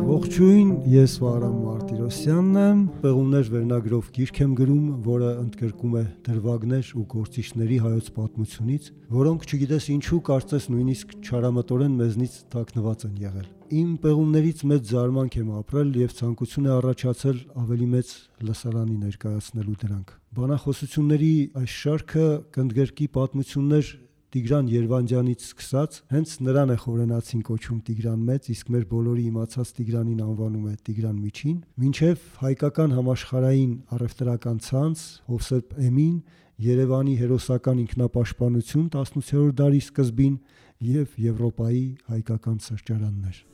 Ողջույն, ես Վահրամ Մարտիրոսյանն եմ, Պեղումներ վերնագրով գիրք եմ գրում, որը ընդգրկում է դրվագներ ու գործիչների հայոց պատմությունից, որոնք չգիտես ինչու կարծես նույնիսկ չարամտորեն մեզնից թաքնված են եղել։ Իմ պեղումներից մեծ զարմանք եմ ապրել եւ ցանկություն է առաջացել ավելի մեծ լսարանի ներկայացնելու դրանք։ Բանախոսությունների այս շարքը կընդգրկի պատմություններ Տիգրան Երվանդյանից սկսած, հենց նրան է խորենացին կոչում Տիգրան Մեծ, իսկ մեր բոլորի իմացած Տիգրանին անվանում է Տիգրան Միջին, մինչև հայկական համաշխարհային առևտրական ցանց, Հովսեփ Էմին, Երևանի հերոսական ինքնապաշտպանություն 18-րդ դարի սկզբին եւ Եվրոպայի հայկական սրճարաններ։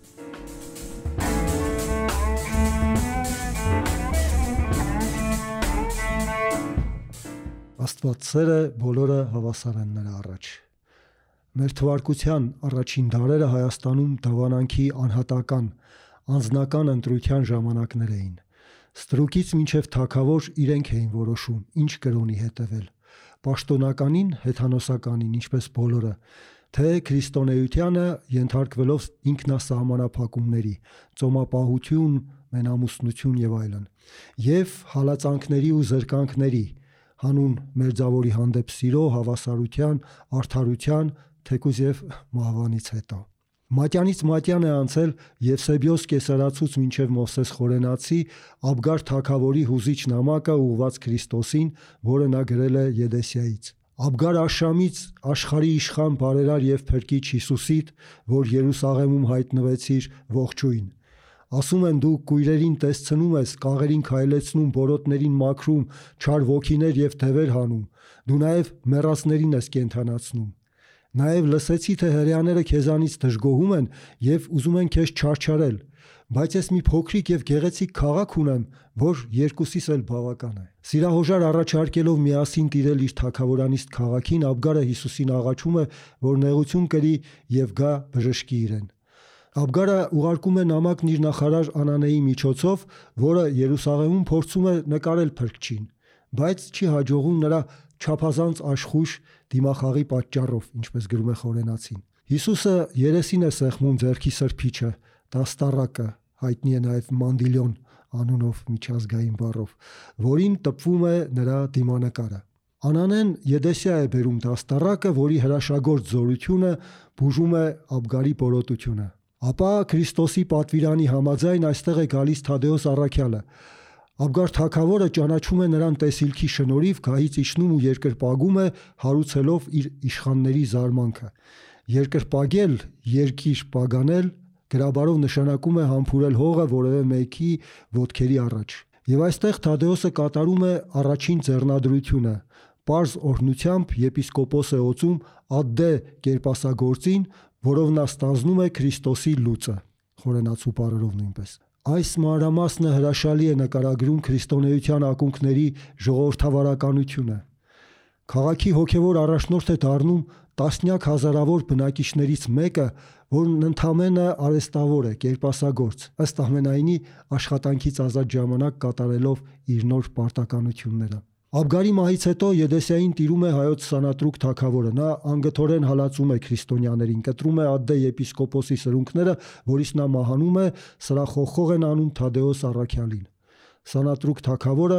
Աստվածսերը բոլորը հավասար են նրա առաջ։ Մեր թվարկության առաջին դարերը Հայաստանում դավանանքի անհատական, անձնական ընտրության ժամանակներ էին։ Ստրուկից մինչև թագավոր իրենք էին որոշում, ինչ կրոնի հետևել։ Պաշտոնականին, հեթանոսականին, ինչպես բոլորը, թե քրիստոնեությանը ենթարկվելով ինքնասահմանափակումների, ծոմապահություն, մենամուսնություն եւ այլն, եւ հալածանքների ու զրկանքների, հանուն մերձավորի հանդեպ սիրո, հավասարության, արդարության, թեկուզ եւ մահվանից հետո։ Մատյանից մատյան է անցել Եվսեբիոս կեսարացուց մինչև Մովսես Խորենացի Աբգար թագավորի հուզիչ նամակը ուղված Քրիստոսին, որը նա գրել է Եդեսիայից։ Աբգար Աշամից աշխարհի իշխան բարերար եւ փրկիչ Հիսուսիդ, որ Երուսաղեմում հայտնվեցիր, ողջույն։ Ասում են դու կույրերին տեսցնում ես, կաղերին քայլեցնում, բորոտներին մաքրում, չար ոգիներ եւ թևեր հանում։ Դու նաեւ մեռածներին ես կենդանացնում։ Նաեւ լսեցի, թե հրեաները քեզանից դժգոհում են եւ ուզում են քեզ չարչարել, բայց ես մի փոքրիկ եւ գեղեցիկ քաղաք ունեմ, որ երկուսիս էլ բավական է։ Սիրահոժար առաջարկելով միասին տիրել իր թագավորանիստ քաղաքին, Աբգարը Հիսուսին աղաչում է, որ նեղություն կրի եւ գա բժշկի իրեն։ Աբգարը ուղարկում է նամակն իր նախարար Անանեի միջոցով, որը Երուսաղեմում փորձում է նկարել փրկչին, բայց չի հաջողում նրա չափազանց աշխույժ դիմախաղի պատճառով, ինչպես գրում է Խորենացին։ Հիսուսը երեսին է սեղմում ձեռքի սրբիչը, դաստառակը, հայտնի է նաև Մանդիլյոն անունով միջազգային բառով, որին տպվում է նրա դիմանկարը։ Անանեն Եդեսիա է բերում դաստառակը, որի հրաշագործ զորությունը բուժում է Աբգարի բորոտությունը։ Ապա Քրիստոսի պատվիրանի համաձայն այստեղ է գալիս Թադեոս առաքյալը։ Աբգար թագավորը ճանաչում է նրան տեսիլքի շնորհիվ, գահից իջնում ու երկրպագում է, հարուցելով իր իշխանների զարմանքը։ Երկրպագել, երկիր պագանել գրաբարով նշանակում է համբուրել հողը որևէ մեկի ոտքերի առաջ։ Եվ այստեղ Թադեոսը կատարում է առաջին ձեռնադրությունը։ Պարզ օրհնությամբ եպիսկոպոս է օծում Ադդե կերպասագործին, որով նա ստանձնում է Քրիստոսի լուծը, Խորենացու բառերով նույնպես։ Այս մանրամասնը հրաշալի է նկարագրում քրիստոնեության ակունքների ժողովրդավարականությունը։ Քաղաքի հոգևոր առաջնորդ է դառնում տասնյակ հազարավոր բնակիչներից մեկը, որն ընդամենը արհեստավոր է, կերպասագործ, ըստ ամենայնի աշխատանքից ազատ ժամանակ կատարելով իր նոր պարտականությունները։ Աբգարի մահից հետո Եդեսիային տիրում է հայոց Սանատրուկ թագավորը։ Նա անգթորեն հալածում է քրիստոնյաներին, կտրում է Ադդե եպիսկոպոսի սրունքները, որից նա մահանում է, սրախոխող են անում Թադեոս առաքյալին։ Սանատրուկ թագավորը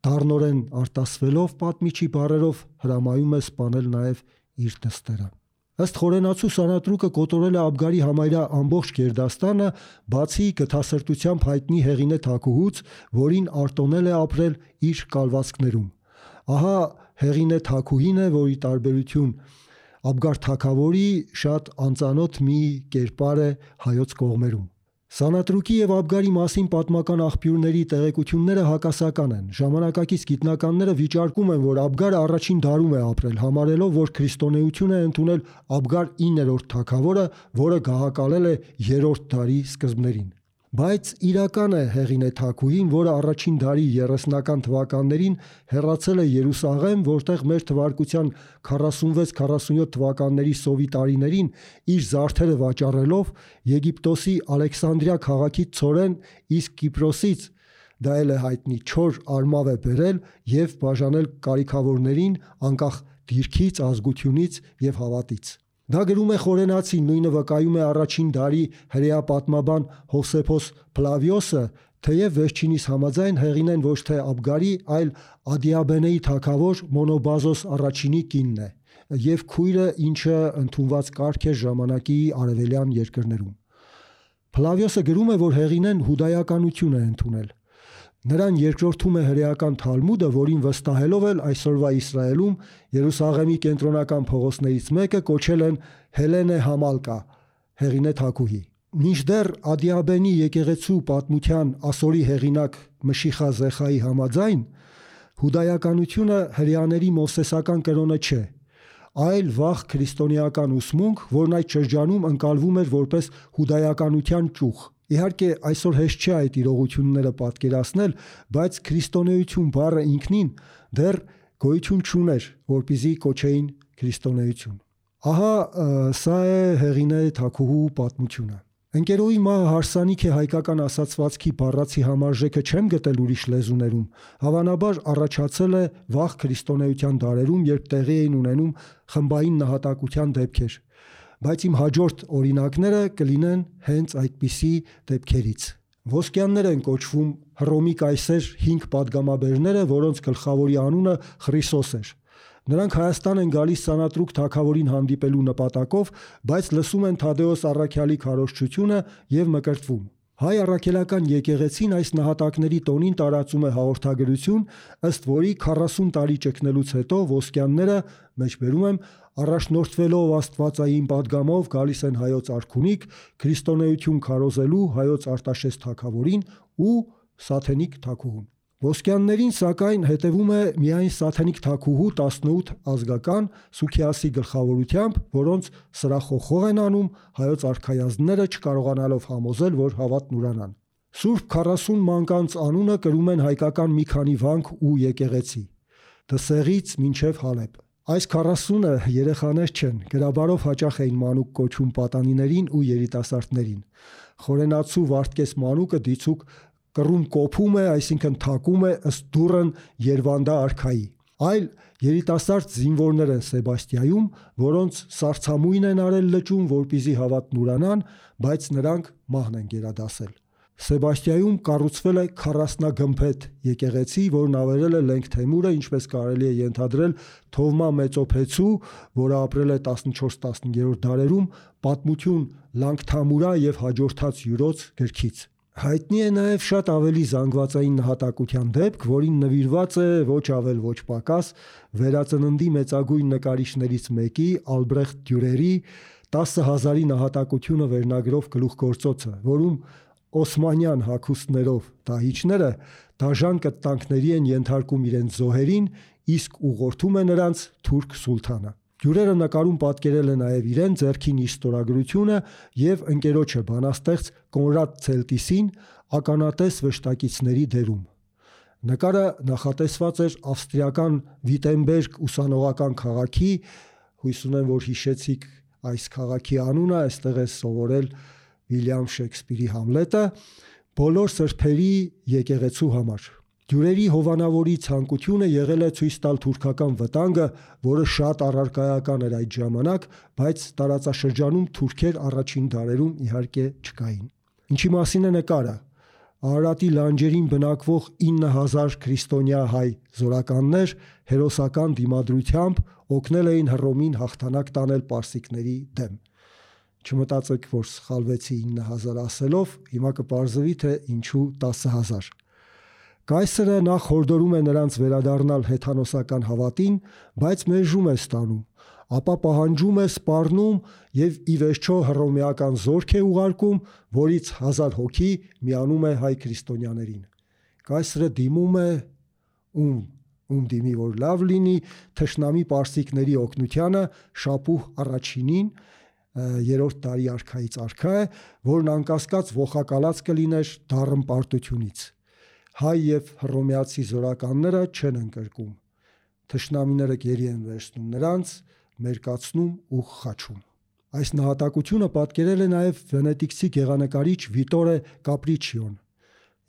դառնորեն արտասվելով պատմիչի բառերով հրամայում է սպանել նաև իր դստերը։ Ըստ Խորենացու Սանատրուկը կոտորել է Աբգարի համարյա ամբողջ գերդաստանը, բացի գթասրտությամբ հայտնի Հեղինե թագուհուց, որին արտոնել է ապրել իր կալվածքներում։ Ահա Հեղինե թագուհին է, որի տարբերություն Աբգար թագավորի շատ անծանոթ մի կերպար է հայոց կողմերում։ Սանատրուկի եւ Աբգարի մասին պատմական աղբյուրների տեղեկությունները հակասական են։ Ժամանակակից գիտնականները վիճարկում են, որ Աբգարը առաջին դարում է ապրել, համարելով, որ քրիստոնեություն է ընդունել Աբգար 9-րդ թագավորը, որը գահակալել է 3-րդ դարի սկզբներին։ Բայց իրական է Հեղինե թագուհին, որը առաջին դարի 30-ական թվականներին հեռացել է Երուսաղեմ, որտեղ մեր թվարկության 46-47 թվականների սովի տարիներին իր զարդերը վաճառելով Եգիպտոսի Ալեքսանդրիա քաղաքից ցորեն, իսկ Կիպրոսից դա էլ է հայտնի չոր արմավ է բերել եւ բաժանել կարիքավորներին անկախ դիրքից, ազգությունից եւ հավատից։ Դա գրում է Խորենացին, նույնը վկայում է առաջին դարի հրեա պատմաբան Հովսեփոս Փլավիոսը, թեև վերջինիս համաձայն Հեղինեն ոչ թե Աբգարի, այլ Ադիաբենեի թագավոր Մոնոբազոս առաջինի կինն է և քույրը, ինչը ընդունված կարգ էր ժամանակի արևելյան երկրներում։ Փլավիոսը գրում է, որ Հեղինեն հուդայականություն է ընդունել։ Նրան երկրորդում է հրեական Թալմուդը, որին վստահելով էլ այսօրվա Իսրայելում Երուսաղեմի կենտրոնական փողոցներից մեկը կոչել են Հելենե Համալկա, Հեղինե թագուհի։ Մինչդեռ Ադիաբենի եկեղեցու պատմության ասորի հեղինակ Մշիխա Զեխայի համաձայն հուդայականությունը հրեաների մովսեսական կրոնը չէ, այլ վաղ քրիստոնեական ուսմունք, որն այդ շրջանում ընկալվում էր որպես հուդայականության ճյուղ։ Իհարկե, այսօր հեշտ չէ այդ իրողությունները պատկերացնել, բայց քրիստոնեություն բառը ինքնին դեռ գոյություն չուներ, որպեսզի կոչեին քրիստոնեություն։ Ահա սա է Հեղինե թագուհու պատմությունը։ Ընկերոյի մահը հարսանիք է հայկական ասացվածքի բառացի համարժեքը չեմ գտել ուրիշ լեզուներում, հավանաբար առաջացել է վաղ քրիստոնեության դարերում, երբ տեղի էին ունենում խմբային նահատակության դեպքեր, բայց իմ հաջորդ օրինակները կլինեն հենց այդպիսի դեպքերից։ Ոսկյաններ են կոչվում Հռոմի կայսեր 5 պատգամաբերները, որոնց գլխավորի անունը Խրիսոս էր։ Նրանք Հայաստան են գալիս Սանատրուկ թագավորին հանդիպելու նպատակով, բայց լսում են Թադեոս առաքյալի քարոզչությունը և մկրտվում։ Հայ առաքելական եկեղեցին այս նահատակների տոնին տարածում է հաղորդագրություն, ըստ որի 40 տարի ճգնելուց հետո ոսկյանները, մեջբերում եմ, առաջնորդվելով աստվածային պատգամով գալիս են հայոց արքունիք, քրիստոնեություն քարոզելու հայոց Արտաշես թագավորին ու Սաթենիկ թագուհուն։ Ոսկյաններին սակայն հետևում է միայն Սաթենիկ թագուհու 18 ազգական Սուքիասի գլխավորությամբ, որոնց սրախոխող են անում հայոց արքայազնները, չկարողանալով համոզել, որ հավատն ուրանան։ Սուրբ 40 մանկանց անունը կրում են հայկական մի քանի վանք ու եկեղեցի՝ Դսեղից մինչև Հալեբ։ Այս 40-ը երեխաներ չեն, գրաբարով հաճախ էին մանուկ կոչում պատանիներին ու երիտասարդներին։ Խորենացու Վարդգես մանուկը դիցուկ կռում կոփում է, այսինքն թակում է ըստ դուռն Երվանդա արքայի։ Այլ երիտասարդ զինվորներ են Սեբաստիայում, որոնց սառցամույն են արել լճում, որպեսզի հավատն ուրանան, բայց նրանք մահն են գերադասել։ Սեբաստիայում կառուցվել է 40-գմփեթ եկեղեցի, որն ավերել է Լենգ Թեմուրը, ինչպես կարելի է ենթադրել Թովմա Մեծոփեցու, որը ապրել է 14-15-րդ դարերում, պատմություն Լանգթամուրա և հաջորդած յուրոց գրքից։ Հայտնի է նաև շատ ավելի զանգվածային նահատակության դեպք, որին նվիրված է ոչ ավել ոչ պակաս վերածննդի մեծագույն նկարիչներից մեկի Ալբրեխտ Դյուրերի 10,000-ի նահատակությունը վերնագրով գլուխգործոցը, որում օսմանյան հագուստներով դահիճները դաժան կտանքների են ենթարկում իրենց զոհերին, իսկ ուղղորդում է նրանց թուրք սուլթանը։ Դյուրերը նկարում պատկերել է նաև իրեն, ձեռքին իր ստորագրությունը և ընկերոջը բանաստեղծ Կոնրադ Ցելտիսին ականատես վշտակիցների դերում։ Նկարը նախատեսված էր ավստրիական Վիտենբերգ ուսանողական քաղաքի, հույս ունեմ, որ հիշեցիք այս քաղաքի անունը, այստեղ է սովորել Վիլյամ Շեքսպիրի Համլետը, բոլոր սրբերի եկեղեցու համար։ Դյուրերի հովանավորի ցանկությունը եղել է ցույց տալ թուրքական վտանգը, որը շատ առարկայական էր այդ ժամանակ, բայց տարածաշրջանում թուրքեր առաջին դարերում իհարկե չկային։ Ինչի մասին է նկարը։ Արարատի լանջերին բնակվող 9000 քրիստոնյա հայ զորականներ հերոսական դիմադրությամբ օգնել էին Հռոմին հաղթանակ տանել պարսիկների դեմ։ Չմտածեք, որ սխալվեցի 9000 ասելով, հիմա կպարզվի, թե ինչու 10000։ Կայսրը նախ հորդորում է նրանց վերադառնալ հեթանոսական հավատին, բայց մերժում է ստանում, ապա պահանջում է սպառնում և ի վերջո հռոմեական զորք է ուղարկում, որից 1000 հոգի միանում է հայ քրիստոնյաներին։ Կայսրը դիմում է ում դիմի, որ լավ լինի, թշնամի պարսիկների օգնությանը Շապուհ առաջինին, 3-րդ դարի արքայից արքա է, որն անկասկած ողակալած կլիներ դառն պարտությունից։ Հայ և հռոմեացի զորականները չեն ընկրկում։ Թշնամիները գերի են վերցնում նրանց, մերկացնում ու խաչում։ Այս նահատակությունը պատկերել է նաև վենետիկցի գեղանկարիչ Վիտորե Կապրիչիոն։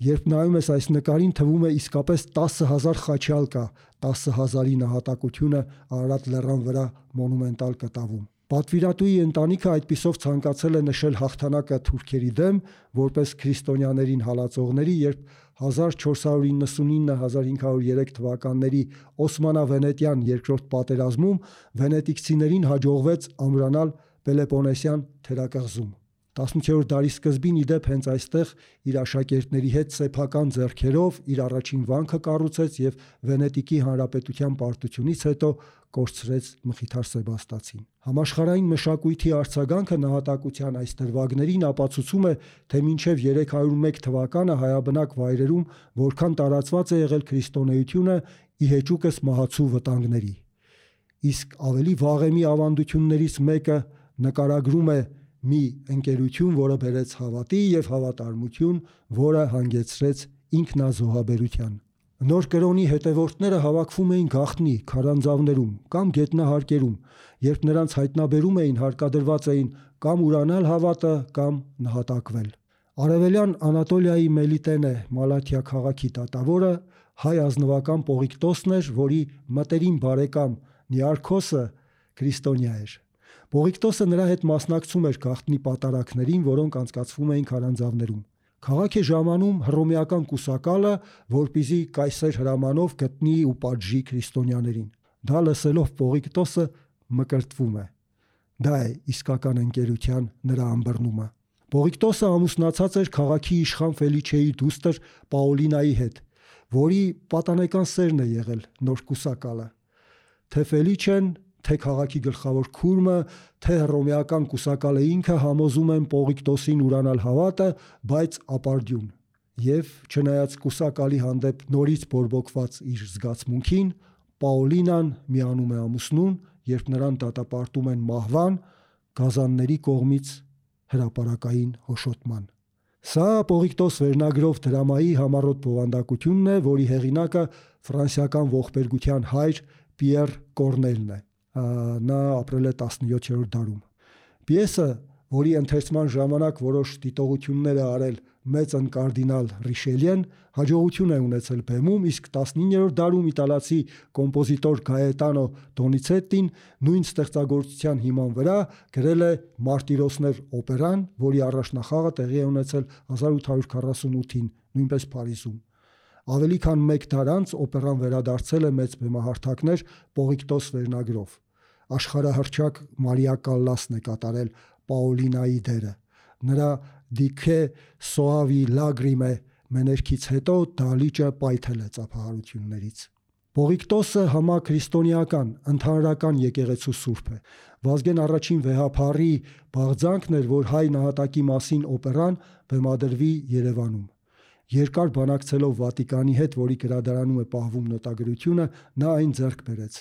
Երբ նայում ես այս նկարին, թվում է իսկապես 10000 խաչյալ կա 10000-ի նահատակությունը Արարատ լեռան վրա մոնումենտալ կտավում։ Պատվիրատուի ընտանիքը այդպիսով ցանկացել է նշել հաղթանակը թուրքերի դեմ որպես քրիստոնյաներին հալածողների, երբ 1499-1503 թվականների Օսմանա-վենետյան երկրորդ պատերազմում վենետիկցիներին հաջողվեց ամրանալ Պելոպոնեսյան թերակղզում։ 18-րդ դարի սկզբին իդեպ հենց այստեղ իր աշակերտների հետ սեփական ձեռքերով իր առաջին վանքը կառուցեց եւ Վենետիկի հանրապետության պարտությունից հետո կորցրեց Մխիթար Սեբաստացին։ Համաշխարհային մշակույթի արձագանքը նահատակության այս դրվագներին ապացուցում է, թե մինչև 301 թվականը հայաբնակ վայրերում որքան տարածված է եղել քրիստոնեությունը ի հեճուկս մահացու վտանգների։ Իսկ ավելի վաղեմի ավանդություններից մեկը նկարագրում է մի ընկերություն, որը բերեց հավատի եւ հավատարմություն, որը հանգեցրեց ինքնազոհաբերության։ Նոր կրոնի հետևորդները հավաքվում էին գաղտնի, քարանձավներում կամ գետնահարկերում, երբ նրանց հայտնաբերում էին, հարկադրված էին կամ ուրանալ հավատը, կամ նահատակվել։ Արևելյան Անատոլիայի Մելիտենե Մալաթիա քաղաքի դատավորը հայ ազնվական Պողիկտոսն էր, որի մտերիմ բարեկամ Նիարքոսը քրիստոնյա էր։ Պողիկտոսը նրա հետ մասնակցում էր գաղտնի պատարակներին, որոնք անցկացվում էին քարանձավներում։ Քաղաք է ժամանում հռոմեական կուսակալը, որպեսզի կայսեր հրամանով գտնի ու պատժի քրիստոնյաներին։ Դա լսելով Պողիկտոսը մկրտվում է։ Դա է իսկական ընկերության նրա ըմբռնումը։ Պողիկտոսը ամուսնացած էր քաղաքի իշխան Ֆելիչեի դուստր Պաուլինայի հետ, որի պատանեկան սերն է եղել նոր կուսակալը։ Թե Ֆելիչեն, թե քաղաքի գլխավոր քուրմը, թե հռոմեական կուսակալը ինքը համոզում են Պողիկտոսին ուրանալ հավատը, բայց ապարդյուն։ Եվ չնայած կուսակալի հանդեպ նորից բորբոքված իր զգացմունքին, Պաուլինան միանում է ամուսնուն, երբ նրան դատապարտում են մահվան գազանների կողմից հրապարակային հոշոտման։ Սա Պողիկտոս վերնագրով դրամայի համառոտ բովանդակությունն է, որի հեղինակը ֆրանսիական ողբերգության հայր Պիեր Կորնելն է։ Նա ապրել է 17-րդ դարում։ Պիեսը, որի ընթերցման ժամանակ որոշ դիտողություններ է արել մեծն կարդինալ Ռիշելիեն, հաջողություն է ունեցել բեմում, իսկ 19-րդ դարում իտալացի կոմպոզիտոր Գաետանո Դոնիցետտին նույն ստեղծագործության հիման վրա գրել է Մարտիրոսներ օպերան, որի առաջնախաղը տեղի է ունեցել 1848-ին, նույնպես Փարիզում։ Ավելի քան մեկ դար անց օպերան վերադարձել է մեծ բեմահարթակներ Պողիկտոս վերնագրով։ Աշխարհահռչակ Մարիա Կալլասն է կատարել Պաուլինայի դերը։ Նրա «Դիքե սոավի լագրիմե» մեներքից հետո դալիճը պայթել է ծափահարություններից։ Պողիկտոսը համաքրիստոնեական, ընդհանրական եկեղեցու սուրբ է։ Վազգեն առաջին վեհափառի բաղձանքն էր, որ հայ նահատակի մասին օպերան բեմադրվի Երևանում։ Երկար բանակցելով Վատիկանի հետ, որի գրադարանում է պահվում նոտագրությունը, նա այն ձեռք բերեց։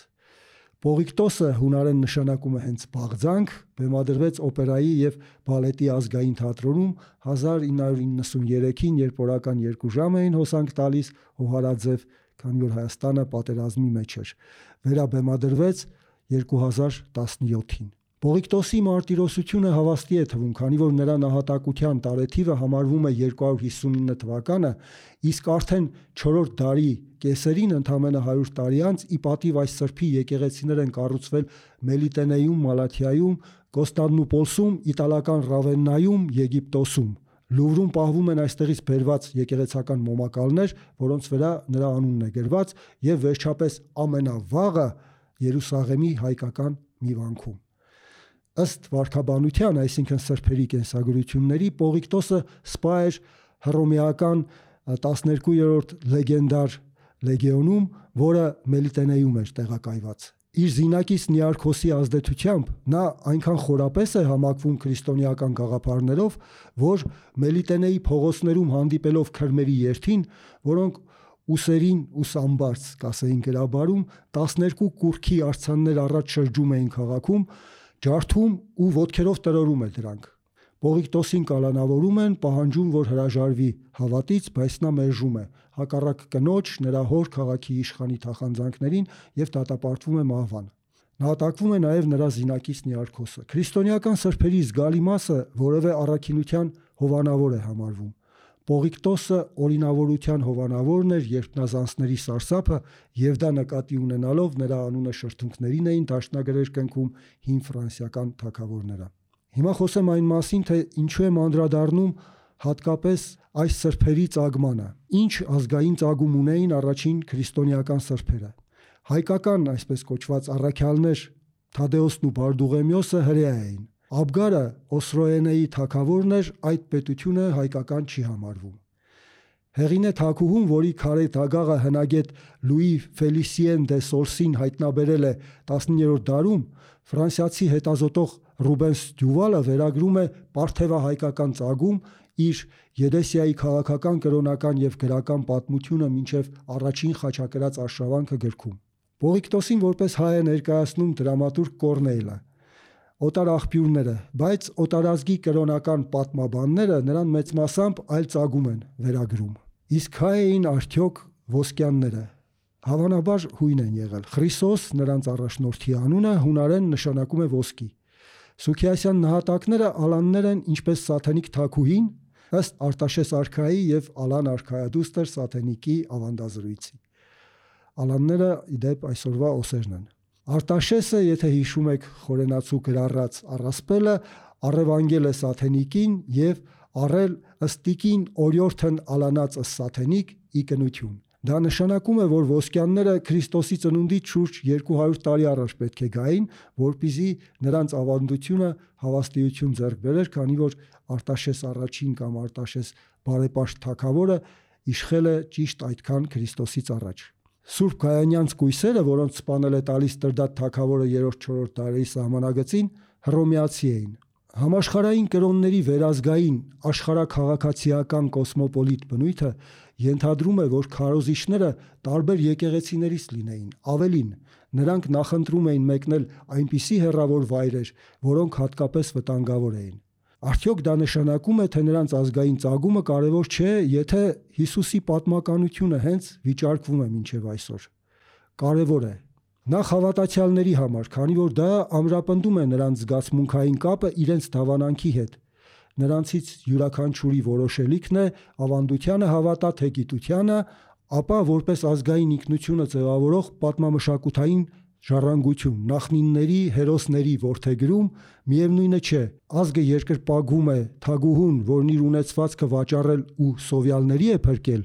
Պողիկտոսը, հունարեն նշանակում է հենց բաղձանք, բեմադրվեց օպերայի և բալետի ազգային թատրոնում 1993-ին, երբ օրական 2 ժամ էին հոսանք տալիս հոհարաձև, քանի որ Հայաստանը պատերազմի մեջ էր։ Վերաբեմադրվեց 2017-ին։ Պողիկտոսի մարտիրոսությունը հավաստի է թվում, քանի որ նրա նահատակության տարեթիվը համարվում է 259 թվականը, իսկ արդեն 4-րդ դարի կեսերին, ընդամենը 100 տարի անց, ի պատիվ այս սրբի եկեղեցիներ են կառուցվել Մելիտենեում, Մալաթիայում, Կոստանդնուպոլսում, իտալական Ռավեննայում, Եգիպտոսում։ Լուվրում պահվում են այստեղից բերված եկեղեցական մոմակալներ, որոնց վրա նրա անունն է գրված, եւ վերջապես ամենավաղը Երուսաղեմի հայկական մի վանքում։ Ըստ վարքաբանության, այսինքն սրբերի կենսագրությունների, Պողիկտոսը սպա էր հռոմեական 12-րդ լեգենդար լեգիոնում, որը Մելիտենեում էր տեղակայված։ Իր զինակից Նիարքոսի ազդեցությամբ նա այնքան խորապես է համակվում քրիստոնեական գաղափարներով, որ Մելիտենեի փողոցներում հանդիպելով քրմերի երթին, որոնք ուսերին ուսամբարձ կասեին գրաբարում, 12 կուռքի արձաններ առաջ շրջում էին քաղաքում, ջարդում ու ոտքերով տրորում է դրանք։ Պողիկտոսին կալանավորում են, պահանջում, որ հրաժարվի հավատից, բայց նա մերժում է, հակառակ կնոջ, նրա հոր քաղաքի իշխանի թախանձանքներին եւ դատապարտվում է մահվան։ Նահատակվում է նաեւ նրա զինակից Նիարքոսը։ Քրիստոնեական սրբերի զգալի մասը որևէ առաքինության հովանավոր է համարվում։ Պողիկտոսը օրինավորության հովանավորն էր երկնազանցների սարսափը, եւ դա նկատի ունենալով նրա անունը շրթունքներին էին դաշնագրեր կնքում հին ֆրանսիական թագավորները։ Հիմա խոսեմ այն մասին, թե ինչու եմ անդրադառնում հատկապես այս սրբերի ծագմանը։ Ինչ ազգային ծագում ունեին առաջին քրիստոնեական սրբերը։ Հայկական, այսպես կոչված առաքյալներ Թադեոսն ու Բարդուղեմիոսը հրեա էին։ Աբգարը Օսրոենեի թագավորն էր, այդ պետությունը հայկական չի համարվում։ Հեղինե թագուհուն, որի քարե դագաղը հնագետ Լուի Ֆելիսիեն դե Սորսին հայտնաբերել է 19-րդ դարում, ֆրանսիացի հետազոտող Ռուբենս Դյուվալը վերագրում է պարթևահայկական ծագում իր Եդեսիայի քաղաքական, կրոնական եւ գրական պատմությունը մինչեւ առաջին խաչակրաց արշավանքը գրքում։ Պողիկտոսին որպես հայ է ներկայացնում դրամատուրգ Կորնեյլը։ Օտար աղբյուրները, բայց օտարազգի կրոնական պատմաբանները նրան մեծ մասամբ այլ ծագում են վերագրում։ Իսկ հայ էին արդյոք ոսկյանները։ Հավանաբար հույն են եղել։ Խրիսոս, նրանց առաջնորդի անունը, հունարեն նշանակում է ոսկի։ Սուքիասյան նահատակները ալաններ են ինչպես Սաթենիկ թագուհին, ըստ Արտաշես արքայի եւ Ալան արքայադուստր Սաթենիկի ավանդազրույցի։ Ալանները իդեպ այսօրվա օսերն են։ Արտաշեսը, եթե հիշում եք խորենացու գրառած առասպելը, առևանգել է Սաթենիկին եւ առել ըստիկին օրյորթն ալանած Սաթենիկ ի կնություն։ Դա նշանակում է, որ ոսկյանները Քրիստոսի ծնունդից շուրջ 200 տարի առաջ պետք է գային, որպեսզի նրանց ավանդությունը հավաստիություն ձեռք բերեր, քանի որ Արտաշես առաջին կամ Արտաշես բարեպաշտ թագավորը իշխել է ճիշտ այդքան Քրիստոսից առաջ։ Սուրբ Գայանյանց կույսերը, որոնց սպանել է տալիս Տրդատ թագավորը 3-4 դարերի սահմանագծին, հռոմեացի էին։ Համաշխարհային կրոնների վերազգային աշխարհաքաղաքացիական կոսմոպոլիտ բնույթը ենթադրում է, որ քարոզիչները տարբեր եկեղեցիներից լինեին։ Ավելին, նրանք նախընտրում էին մեկնել այնպիսի հեռավոր վայրեր, որոնք հատկապես վտանգավոր էին։ Արդյոք դա նշանակում է, թե նրանց ազգային ծագումը կարևոր չէ, եթե Հիսուսի պատմականությունը հենց վիճարկվում է մինչև այսօր։ Կարևոր է։ Նախ հավատացյալների համար, քանի որ դա ամրապնդում է նրանց զգացմունքային կապը իրենց դավանանքի հետ։ Նրանցից յուրաքանչյուրի որոշելիքն է ավանդությանը հավատա թե գիտությանը, ապա որպես ազգային ինքնությունը ձևավորող պատմամշակութային ժառանգություն, նախնինների, հերոսների որդեգրում, միևնույնը չէ, ազգը երկրպագում է թագուհուն, որն իր ունեցվածքը վաճառել ու սովյալների է փրկել,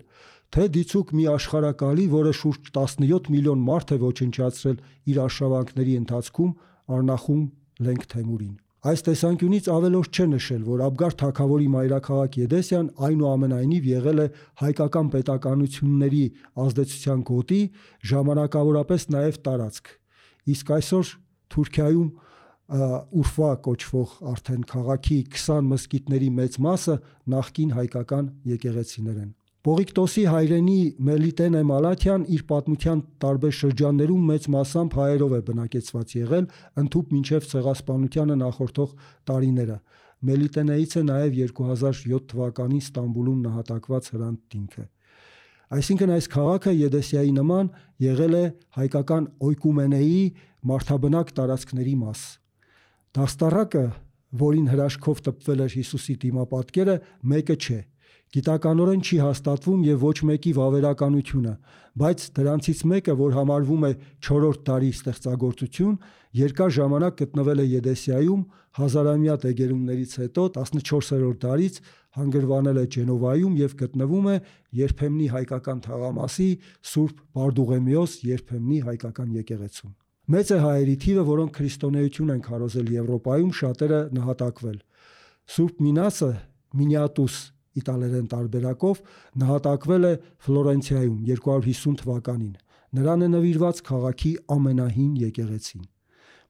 թե դիցուկ մի աշխարհակալի, որը շուրջ 17 միլիոն մարդ է ոչնչացրել իր արշավանքների ընթացքում Արնախում Լենք Թեմուրին։ Այս տեսանկյունից ավելորդ չէ նշել, որ Աբգար թագավորի մայրաքաղաք Եդեսիան այնուամենայնիվ եղել է հայկական պետականությունների ազդեցության գոտի, ժամանակավորապես նաև տարածք։ Իսկ այսօր Թուրքիայում Ուրֆա կոչվող արդեն քաղաքի 20 մզկիթների մեծ մասը նախկին հայկական եկեղեցիներ են։ Պողիկտոսի հայրենի Մելիտենե Մալաթյան իր պատմության տարբեր շրջաններում մեծ մասամբ հայերով է բնակեցված եղել, ընդհուպ մինչև ցեղասպանությանը նախորդող տարիները։ Մելիտենեից է նաև 2007 թվականին Ստամբուլում նահատակված Հրանտ Դինքը։ Այսինքն այս քաղաքը Եդեսիայի նման եղել է հայկական օյկումենեի մարդաբնակ տարածքների մաս։ Դաստառակը, որին հրաշքով տպվել էր Հիսուսի դիմապատկերը, մեկը չէ։ Գիտականորեն չի հաստատվում եւ ոչ մեկի վավերականությունը, բայց դրանցից մեկը, որ համարվում է 4-րդ դարի ստեղծագործություն, երկար ժամանակ գտնվել է Եդեսիայում, հազարամյա դեգերումներից հետո 14-րդ դարից հանգրվանել է Ջենովայում եւ գտնվում է երբեմնի հայկական թաղամասի Սուրբ Բարդուղեմիոս երբեմնի հայկական եկեղեցում։ Մեծ է հայերի թիվը, որոնք քրիստոնեություն են քարոզել Եվրոպայում, շատերը նահատակվել։ Սուրբ Մինասը, Մինիատուս իտալերեն տարբերակով, նահատակվել է Ֆլորենցիայում 250 թվականին։ Նրան է նվիրված քաղաքի ամենահին եկեղեցին։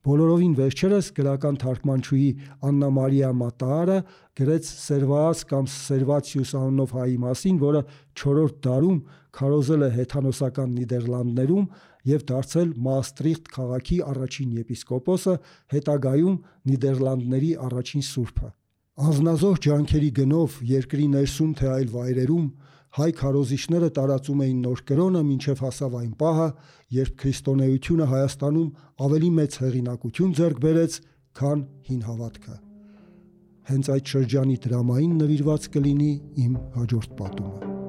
Բոլորովին վերջերս գրական թարգմանչուհի Աննա Մարիա Մատաարը գրեց Սերվաաս կամ Սերվացիուս անունով հայի մասին, որը 4-րդ դարում քարոզել է հեթանոսական Նիդերլանդներում եւ դարձել Մաստրիխտ քաղաքի առաջին եպիսկոպոսը, հետագայում Նիդերլանդների առաջին սուրբը։ Անznազող ջանքերի գնով երկրի ներսում թե այլ վայրերում հայ քարոզիչները տարածում էին նոր կրոնը մինչև հասավ այն պահը, երբ քրիստոնեությունը Հայաստանում ավելի մեծ հեղինակություն ձեռք բերեց, քան հին հավատքը։ Հենց այդ շրջանի դրամային նվիրված կլինի իմ հաջորդ պատումը։